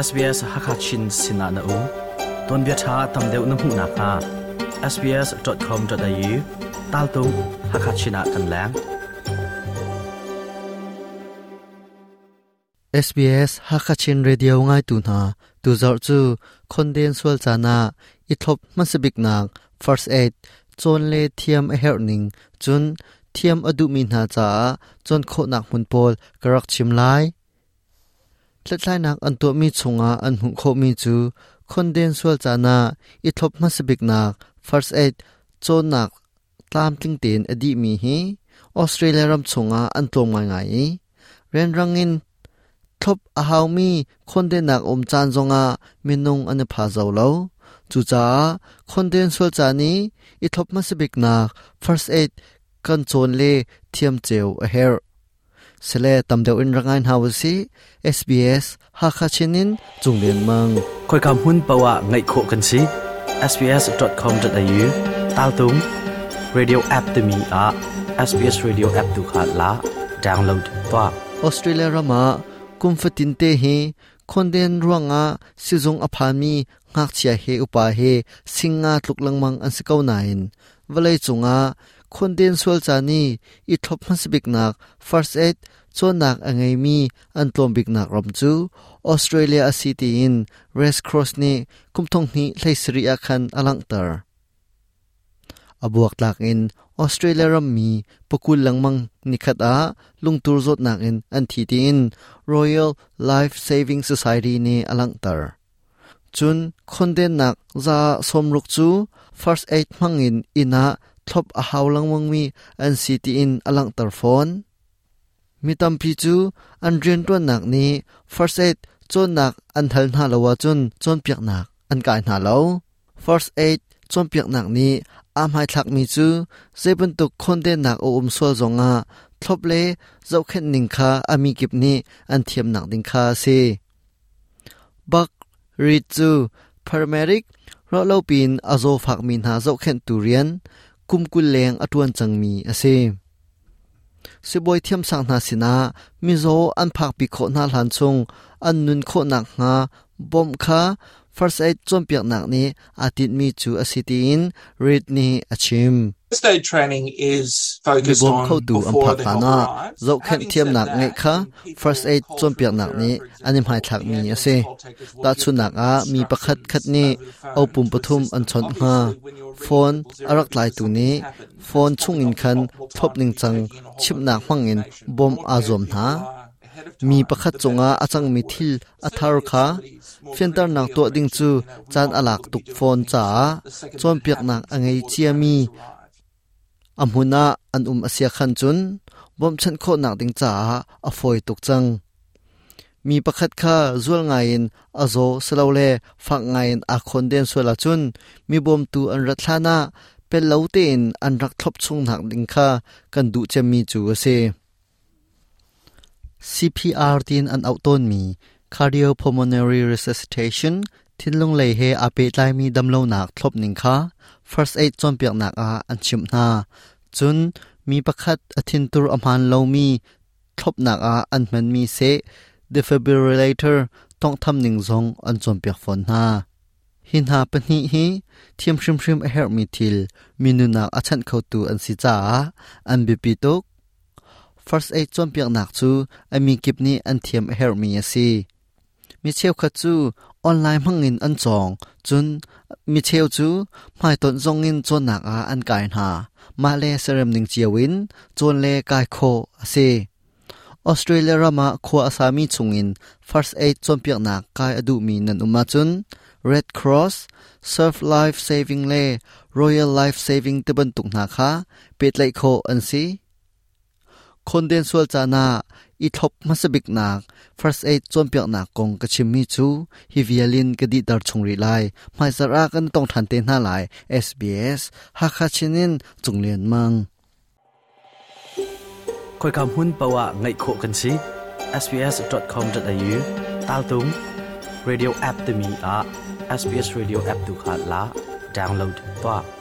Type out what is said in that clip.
SBS Hakha Chin sinah na um. Tuanbia ṭha tam deuh na hmuh nakhnga sbs.com.au taltung Hakha Chin ah kan leng. SBS Hakha Chin Radio ngaitu hna tuzarh cu khonden sual caan ah i thlop hmasabiknak first aid cawn le thiam a herh ning cun thiam a duhmi hna caah cawn khawhnak hmun pawl ka rak chim lai. Hlathlainak an tuahmi chungah an hmuh khawhmi cu khonden sual caan ah i thlop hmasabiknak first aid cawnnak tlamtling tein a dihmi hi Australia ram chungah an tlawm ngaingai i rianrang in thlop a haumi khondennak um caan zongah minung an i pha zo lo. Cucaah khonden sual caan i i thlop hmasabiknak first aid kan cawn le thiam cio a herh. Sile tam deuh in rak ngai hna usih. SBS Hakha Chin in Cung Lian Mang. Khoika hmun paoh ah ngaih khawh kan si. sbs.com.au taltung radio app timi ah SBS radio app tu kha la download tuah. Australia ram ah kum fatin te hi khonden ruangah sizung a phanmi ngakchia he upa he singa tluk lengmang an si ko nain vawlei cungah khonden sual caan i i thlop hmasabiknak first aid cawnnak a ngeimi an tlawm biknak ram cu Australia a si tiin Red Cross nih kum thonghnih 17 ah khan a langhter. A buaktlak in Australia rammi pakul lengmang nikhat ah lungtur zawtnak in an thi tiin Royal Life Saving Society nih a langhter. Cun khondennak 60% cu first aid hmangin inn ah thlop a hau lengmangmi an si tiin a langhter fawn. Mi tampi cu an rianṭuannak nih first aid cawnnak an hal hna lo ahcun cawnpiaknak an kai hna lo. First aid cawnpiaknak nih aa hmaithlakmi cu zei bantuk khawndennak a um sual zongah thlop le zohkhenh ning kha a mi kip nih an thiamnak ding kha a si. Buck Reed cu paramedic ruahlo piin a zawfakmi hna zohkhenhtu rian kum 20 leng a ṭuan cangmi a si. Sibawi thiamsang hna sinah mizaw an phakpi khawh hna hlan chung an nun khawh nakhnga bawmh kha first aid cawnpiaknak nih aa tinhmi cu a si tiin Reid nih a chim. First aid training is focused Mibawm on khotu an before phak the help hlanah arrives. zohkhenh Having said thiamnak that, ngeih kha when people first aid call for cawnpiaknak referral, nih for an i example, hmaithlakmi the a ambulance si. call takers will give Tahchunhnak them ah mi pakhat khat instructions nih over the phone opum to pathum assist an them. chawnh hnga. Obviously, when you're ringing Phone 000 a rak because tlaitu something's nih happened, phone it's probably chungin not the khan optimal thlop time to be ningcang taking in a whole bunch chimhnak of new hmangin information. The bawmh more aa prepared zuam people hna. are ahead of Mi time, pakhat the better cungah a it's going cangmi to work. thil a thar Certainly, if kha somebody's more fianternak critically tuah ill, ding for cu example, you know, we caan want a lak people to be tuk doing fawn things caah the second that it cawnpiaknak happens a ngei before the ciami paramedics arrive. a hmun ah an um a sia khan cun bawmhchanh khawhnak ding caah a fawi tuk cang. Mi pakhat kha zual ngaiin a zaw silole fak ngaiin aa khawnden sual ahcun mi bawmtu an rat hlanah pel lo tein an rak thlop chungnak ding kha kan duh cemmi cu a si. CPR tiin an auh tawnmi cardiopulmonary resuscitation thinlung lei he aa pehtlaimi damlonak thlopning kha first aid cawnpiaknak ah an chimh hna. Cun mi pakhat a thintur a hmaan lomi thlopnak ah an hmanmi seh defibrillator tawnghtham ning zong an cawnpiak fawn hna. Hi hna pahnih hi thiam hrimhrim a herhmi thil mi nunnak a chanh khotu an si caah an biapi tuk. First aid cawnpiaknak cu a mi kip nih an thiam a herhmi a si. Mi cheukhat cu online hmangin an cawng, cun mi cheu cu hmaitonh zongin cawnnak ah an kai hna. Mah le serem ning cio in cawn le kai khawh a si. Australia ram ah khua a sami chungin first aid cawnpiaknak kai a duhmi nan um ahcun Red Cross, Surf Life Saving le Royal Life Saving tibantuk hna kha pehtlaih khawh an si. Khonden sual caan ah i thlop hmasabiknak first aid cawnpiaknak kong ka chimmi cu hi vial in ka dihter chung rih lai. Hmaizarh ah kan tong ṭhan te hna lai. SBS Hakha Chin in Cung Lian Mang. Khoika hmun paoh ah ngaih khawh kan si. sbs.com.au taltung radio app timi ah SBS radio app tu kha la download tuah.